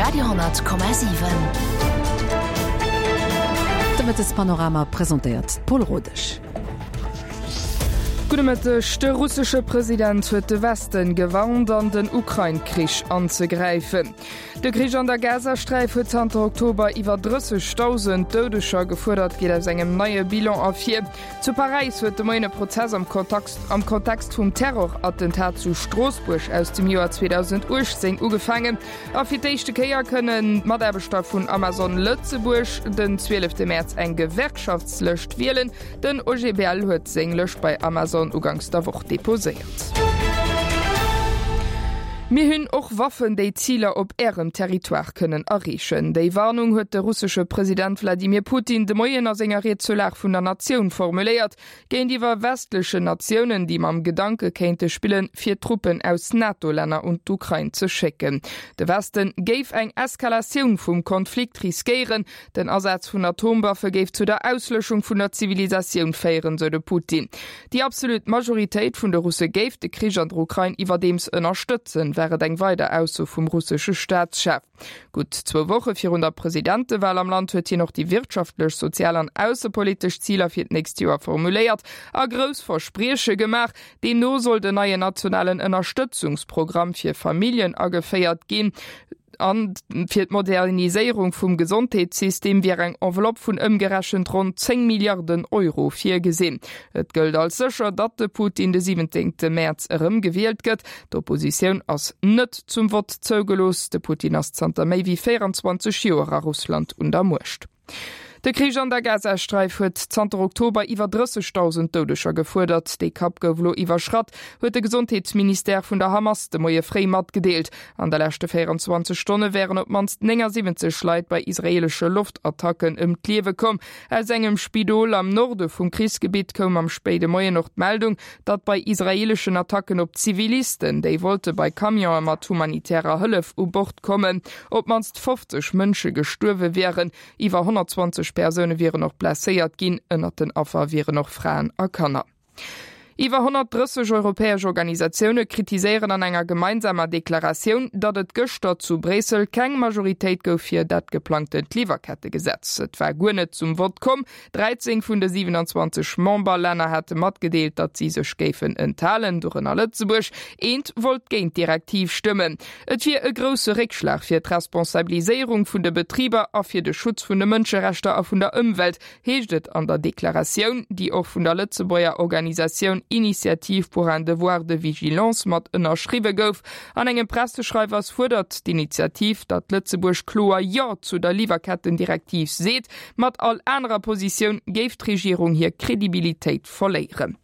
Radio,7. De Mëttespanorama presentéiert d'Paul Rodesch. Gudde Mëtteg. De russesche President huet de Westen gewarnt, an den Ukrain-Krich anzegräifen. De Krich an der Gazasträif huet zanter Oktober iwwer 30.000 Doudeger gefuerdert, geet aus engem neie Bilan ervir. Zu Paräis huet de Moien e Prozess am am Kontext vum Terrorattentat zu Stroossbuerg aus dem Joer 2018 ugefaangen. A fir d'éischte Kéier kënnen d'Mataarbechter vun Amazon Lëtzebuerg den 12 Mäerz eng Gewerkschaftslëscht wielen. Den OGBL huet seng Lëscht bei Amazon uganks der Woch deposéiert. Mir hunn och Waffen, déi Ziler op Ärem Territoire kënnen erreechen. Déi Warnung huet de russesche President Wladimir Putin de Moien a senger Ried zur Lag vun der Natioun formuléiert. Géintiwwer westlechen Natiounen, déi mam Gedanke kéinte spillen, fir Truppen aus NATO-Länner un d'Ukrain ze schécken. De Westen géif eng Eskalatioun vum Konflikt riskéieren. Den Asaz vun Atomwaffe géif zu der Auslöschung vun der Zivilisatioun féieren, sou de Putin. Déi absolut Majoritéit vun de Russe géif de Krich an der Ukrain iwwerdeems ënnerstëtzen, war et eng weider Ausso vum russesche Staatschef. Gutt zwou Woche virun der Presidentewal am Land huet hien och déi wirtschaftlech, sozial an aussepolitesch Ziler fir d'nächst Joer formuléiert a grouss Versprieche gemaach. Deemno soll den neien nationalen Ënnerstëtzungsprogramm fir Familljen ageféiert ginn. An fir d'Moderniséierung vum Gesondheetssystem wier eng Enveloppe vun ëmgerechent ronn 10 Milliarden Euro virgesinn. Et gëllt als sécher, datt de Putin de 17 Mäerz erëm gewielt gëtt. D'Oppositioun ass net zum Vott zougelooss. De Putin ass zanter méi wéi 24 Joer a Russland un der Muecht. De Krich an der Gazasträif huet zanter Oktober iwwer 30.000 Doudeger gefuerdert. Dee Kapp gouf elo iwwerschratt, huet de Gesondheetsministère vun der Hamas de Moie fréi matgedeelt. An de leschte 24 Stonne wären op d'mannst 79 Leit bei israeelesche Loftattacken ëm d'Liewe komm. Aus engem Spidol am Norde vum Krichsgebitt koum am spéide Moien och d'Meldung, datt bei israeeleschen Attacken op Zivilisten, déi wollte bei Camionë mat humanitärer Hëllef u Bord kommen, op d'mannst 50 Mënsche gestuerwe wieren. Iwwer 120 Persoune wieren och blesséiert ginn. Ënnert den Affer wieren och Fraen a Kanner. Iwwer 130 europäesch Organisatioune kritiséieren an enger gemeinsamer Deklaratioun, datt et gëschter zu Bréissel keng Majoritéit gouf fir dat geplangtent Liwwerkettegesetz. Et war guer net zum Vott komm. 13 vun de 27 Memberlänner hate matgedeelt, datt si sech géifen enthalen, dorënner Lëtzebuerg. Eent wollt géint d'Direktiv stëmmen. Et wier e grousse Réckschlag fir d'Responsabiliséierung vun de Betriber a fir de Schutz vun de Mënscherechter a vun der Ëmwelt, heescht et an der Deklaratioun, déi och vun der Lëtzebuerger Organisatioun Initiative pour un devoir de vigilance mat ënnerschriwwe gouf. An engem Presseschreiwers fuerdert d'Initiativ, datt Lëtzebuerg kloer Jo zu der Liwwerkettendirektiv seet. Mat all anerer Positioun géif d'Regierung hir Kredibilitéit verléieren.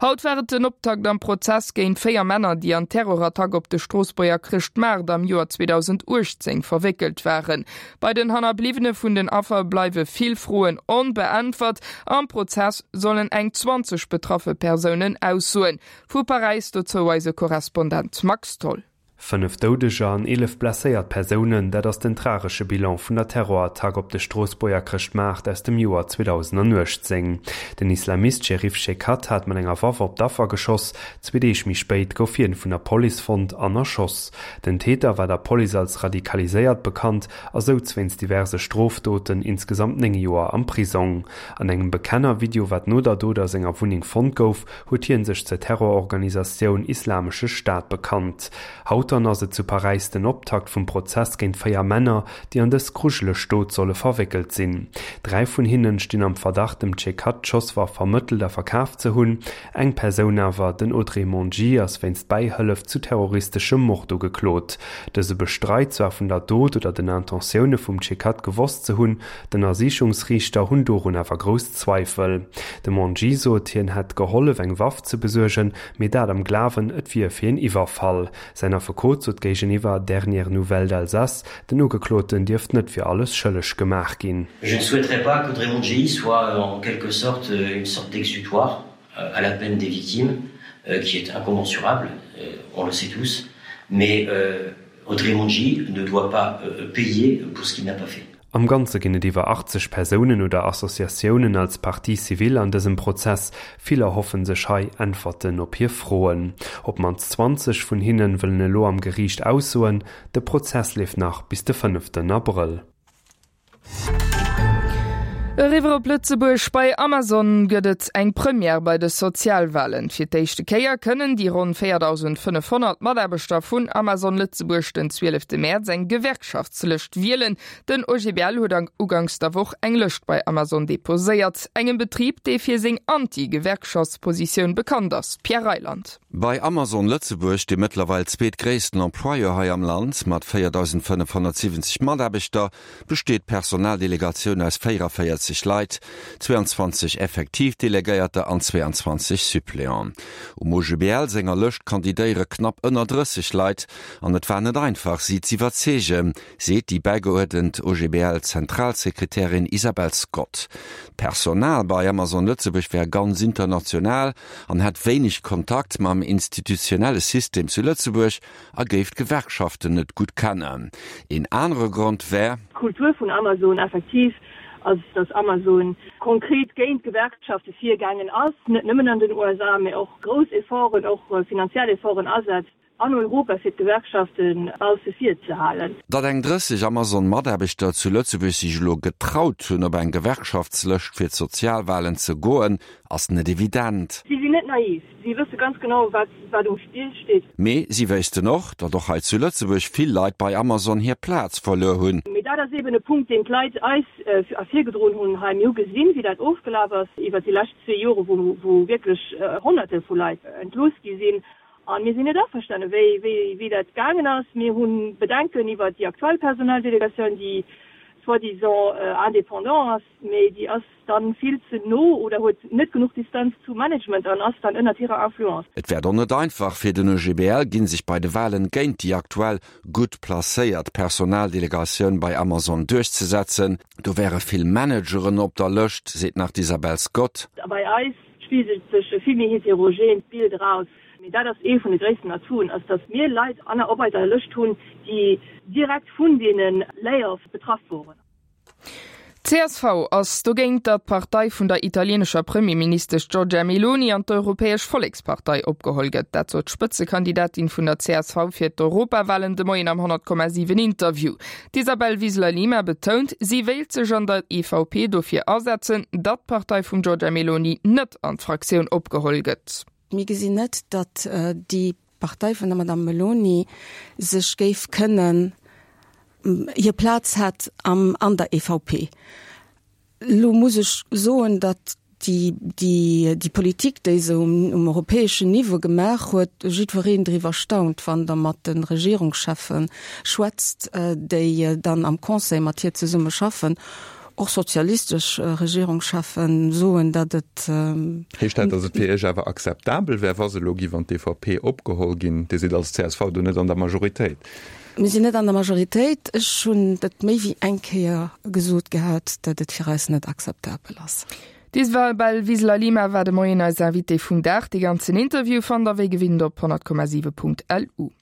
Haut war et den Optakt am Prozess géint 4 Männer, déi an d'Terrorattack op de Stroossbuerger Chrëschtmaart am Joer 2018 verwéckelt waren. Bei den Hannerbliwwene vun den Affer bleiwe vill Froen onbeäntwert. Am Prozess sollen eng 20 betraffe Persounen aussoen. Vu Paräis dozou eise Korrespondent Max Tholl. 5 Doudeger an 11 blesséiert Persounen, dat ass den tragesche Bilan vun der Terrorattack op de Stroossbuerger Chrëschtmaart aus dem Joer 2018. Den Islamist Chérif Chekatt hat mat enger Waff op d'Affer geschoss. Zwee Deeg méi spéit gouf hien vun der Police fonnt an erschoss. Den Täter war der Police als radikaliséiert bekannt a souz wéinst diverse Strofdoten insgesamt 9 Joer am Prisong. An engem Bekenner-Video, wat no der Dot a senger Wunneng fonnt gouf, huet hien sech zur Terrororganisatioun Islamesche Staat bekannt. Haut dann ass et zu Paräis den Optakt vum Prozess géint 4 Männer, déi an dës grujeleg Dot solle verwéckelt sinn. 3 vun hinnen stinn am Verdacht dem Chekatt d'Schosswaff vermëttelt a verkaf ze hunn. Eng Persoun awer, den Audrey Mongi, ass wéinst Bäihëllef zu terroristeschem Mord ugeklot. Dëse bestreit zwar vun der Dot oder den Intentioune vum Chekatt gewosst ze hunn, D'Ënnersichungsriichter hunn dorun awer grouss Zweifel. De Mongi sot, hien hätt gehollef eng Waff ze besuergen, mee dat am Glawen, et wier fir een Iwwerfall. Säin Affekot sot géigeniwwer Dernières Nouvelles d'Alsace, den Ugekloten dierft net fir alles schëlleg gemaach ginn. Je ne souhaiterais pas qu'Audrey Mongi soit en quelque sorte une sorte d'exutoire à la peine des victimes, qui est incommensurable, on le sait tous, mais Audrey Mongi ne doit pas payer pour ce qu'il n'a pas fait. Am Ganze ginn et iwwer 80 Persounen oder Associatiounen als Partie civile an dësem Prozess. Vill erhoffen sech hei Äntwerten op hir Froen. Op d'mannst 20 vun hinne wëllen elo am Geriicht aussoen. De Prozess leeft nach bis de fënneften Abrëll. Eriwwer op Lëtzebuerg, Bei Amazon gëtt et eng Première bei de Sozialwalen. Fir d'éischte Kéier kënnen déi ronn 4.500 Mataarbechter vun Amazon Lëtzebuerg den 12 Mäerz eng Gewerkschaftslëscht wielen. Den OGBL huet uganks der Woch eng Lëscht bei Amazon deposéiert, engem Betrib, dee fir seng Anti-Gewerkschaftspositioun bekannt ass. Pierre Reyland. Bei Amazon Lëtzebuerg, dem mëttlerweil zweetgréissten Employeur hei am Land mat 4.570 Mataarbechter, besteet d'Personaldelegatioun aus 44 Leit, 22 effektiv Delegéierter an 22 Suppléanten. Um OGBL senger Lëscht kandidéiere knapp ënner 30 Leit an et war net einfach, si z'iwwerzeegen, seet déi bäigeuerdent OGBL-Zentralsekretärin Isabel Scott. D'Personal bei Amazon Lëtzebuerg wär ganz international an hätt wéineg Kontakt mam institutionelle System zu Lëtzebuerg a géif d'Gewerkschaften net gutt kennen. Een anere Grond wär. D'Kultur vun Amazon effektiv ass, datt Amazon konkret géint d'Gewerkschafte virgaangen ass, net nëmmen an den USA, mä och grouss Efforten, och finanziell Efforten asetzt. An Europa fir d'Gewerkschafte bausse vir ze halen. Datt eng 30 Amazon-Mataarbechter zu Lëtzebuerg sech elo getraut hunn, op eng Gewerkschaftslëscht fir d'Sozialwalen ze goen, ass net evident. Si sinn net naiv, si wësse ganz genau, wat wat um Spill steet. Mee si wéissten och, datt och hei zu Lëtzebuerg vill Leit bei Amazon hir Plaz verluer hunn. Mee dat ass eben e Punkt, deen d'Leit eis ervirgedroen hunn hei. Mir hu gesinn, wéi dat ofgelaf ass iwwert déi lescht zwee Jore, wou wierklech Honnerte vu Leit entlooss gi sinn. A mir sinn net averstane wéi wéi dat gaangen ass. Mir hu Bedenken iwwert déi aktuell Personaldelegatioun, déi soi-disant indépendant ass, mee déi ass dann vill ze no oder huet net genuch Distanz zum Management an ass dann ënnert hirer Influence. Et wäert och net einfach fir den OGBL ginn, sech bei de Walen géint déi aktuell gutt placéiert Personaldelegatioun bei Amazon duerchzesetzen. Do wäre vill Manageren op der Lëscht, seet nach d'Isabel Scott. A bei eis spigelt sech e vill méi heterogeent Bild eraus. Mee dat ass ee vun de gréissten Atouten, ass datt mir Leit an op eiser Lëscht hunn, déi direkt vun deene Layoffs betraff woren. Csv ass dogéint, datt d'Partei vun der italienescher Premierministesch Giorgia Meloni an d'Europäesch Vollekspartei opgeholl gëtt. Dat sot d'Spëtzekandidatin vun der csv fir d'Europawalen de Moien am 100,7 Interview. D'Isabel Wiseler-Lima betount, si wéilt sech an der EVP dofir asetzen, datt d'Partei vum Giorgia Meloni net an d'Fraktioun opgeholl gëtt. Mir gesinn net, datt déi Partei vun der Madame Meloni sech géif kënnen, hir Plaz hätt an der EVP. Elo muss ech soen, datt déi, déi Politik, déi se um europäeschen Niveau gemaach huet, jiddwereen driwwer staunt, wann Der mat de Regierungscheffe schwätzt, déi dann am Conseil mat hir zesumme schaffen. Och sozialistesch Regierungscheffen soen, datt et. Heescht dat, datt et fir Iech awer akzeptabel wär, wa se elo giff an d'EVP opgeholl ginn? Dir sidd als csv do net an der Majoritéit. Mir sinn net an der Majoritéit. Ech hunn et méi wéi eng Kéier gesot gehat, datt et fir eis net akzeptabel ass. D'Isabel Wiseler-Lima war de Moien eis Invitée vum Dag. Dee ganzen Interview fannt der wéi gewinnt op 100,7.lu.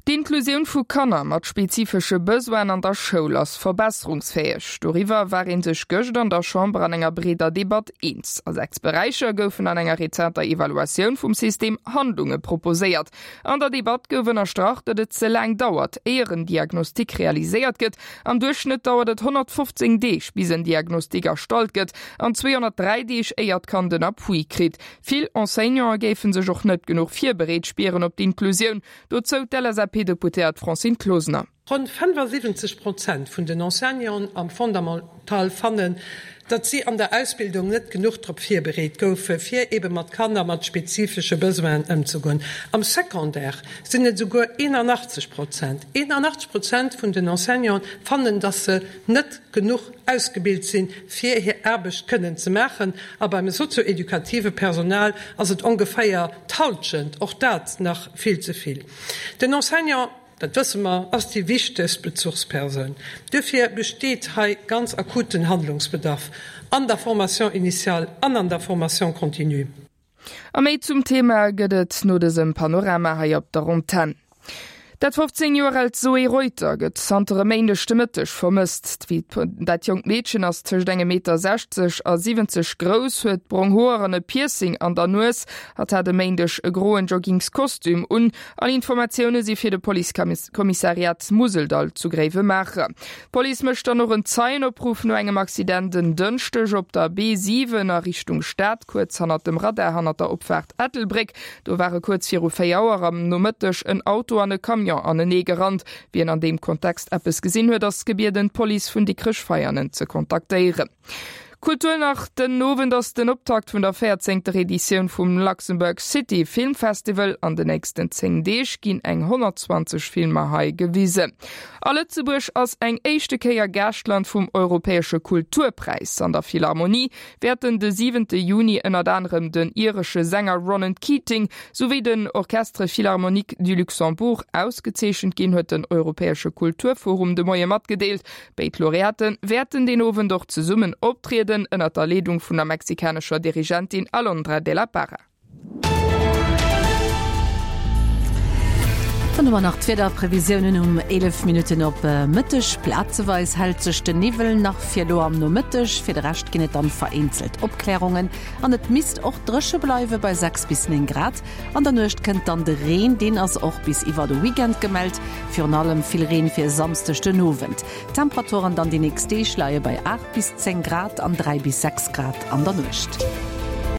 D'Inklusioun vu Kanner mat spezifesche Besoinen an der Schoul ass verbesserungsfäeg. Doriwwer war ee sech gëscht an der Chamber an enger breeder Debatt eens. A 6 Beräicher goufen an enger rezenter Evaluatioun vum System Handlunge proposéiert. An der Debatt gouf ënnerstrach, datt et ze laang dauert, éier en Diagnostic realiséiert gëtt. Am Duerchschnëtt dauert et 115 Deeg, bis en Diagnostic erstallt gëtt, an 203 Deeg, éier d'Kand en Appui kritt. Vill Enseignanten géife sech och net genuch virbereet spieren op d'Inklusioun. Dozou d'LSAP-Deputéiert Francine Closener. Ronn 75 Prozent vun den Enseignanten am Fondamental fannen, datt si an der Ausbildung net genuch drop virbereet goufe fir ebe mat Kanner mat spezifesche Besoinen ëmzegoen. Am Secondaire sinn et esouguer 81 Prozent. 81 Prozent vun den Enseignanten fannen, datt se net genuch ausgebilt sinn, fir hir Aarbecht kënnen ze maachen. A beim sozio-edukative Personal ass et ongeféier d'Halschent, och dat nach vill ze vill. Den Enseignant, dat wësse mer, ass déi wichtegst Bezuchspersoun. Duerfir besteet hei ganz akuten Handlungsbedarf an der Formation initiale an an der Formation continue. A méi zum Thema gëtt et no dësem Panorama hei op der Antenn. Dat 15 Joer aalt Zoé Reuter gëtt zanter e Méindeg de Mëtteg vermësst. Dat jonkt Meedchen ass tëscht engem Meter 60 a 70 grouss, huet brong Hoer an e Piercing an der Nues. Hatt hat e Méindeg e groen Joggingskostüm un. All Informatioune si fir de Policekommissariat Museldall zu Gréiwemaacher. D'Police mécht dann och en Zeienopruff no engem Accident en Dënschdeg op der B7 a Richtung Stad, kuerz hannert dem Radar hannert der Opfaart Ettelbréck. Do ware kuerz viru 4 Auer am Nomëtteg en Auto an e Camion anenee gerannt. Wien an deem Kontext eppes gesinn huet, ass gebieden, d'Police vun Dikrech-Veianen ze kontaktéieren. Kultur nach, Den Owend ass den Optakt vun der véierzéngter Editioun vum Luxembourg City Film Festival. An de nächsten 10 Deeg ginn eng 120 Filmer hei gewisen. A Lëtzebuerg ass eng éischte Kéier Gaaschtland vum Europäesche Kulturpräis. An der Philharmonie wäerten de siwente Juni ënnert anerem den iresche Sänger Ronan Keating souwéi den Orchestre Philharmonique du Luxembourg ausgezeechent ginn, huet den Europäesche Kulturforum de Moie matgedeelt. Béid Laureate wäerten deen Owend och zesummen optrieden, ënnert der Leedung vun der mexikanescher Dirigentin Alondra de la Parra. Dann hu mer nach d'Wiederprevisiounen um 11 Minutten op Mëtteg. Plazeweis hält sech de Niwwel nach fir elo am Nomëtteg, fir de Rescht ginn et dann vereenzelt Opklärungen an et misst och dréche bleiwe bei 6 bis 9 Grad. An der Nuecht kënnt dann de Reen, deen ass och bis iwwer de Weekend gemellt, virun allem vill Reen fir e Samsdeg den Owend. D'Temperaturen dann déi nächst Deeg leie bei 8 bis 10 Grad an 3 bis 6 Grad an der Nuecht.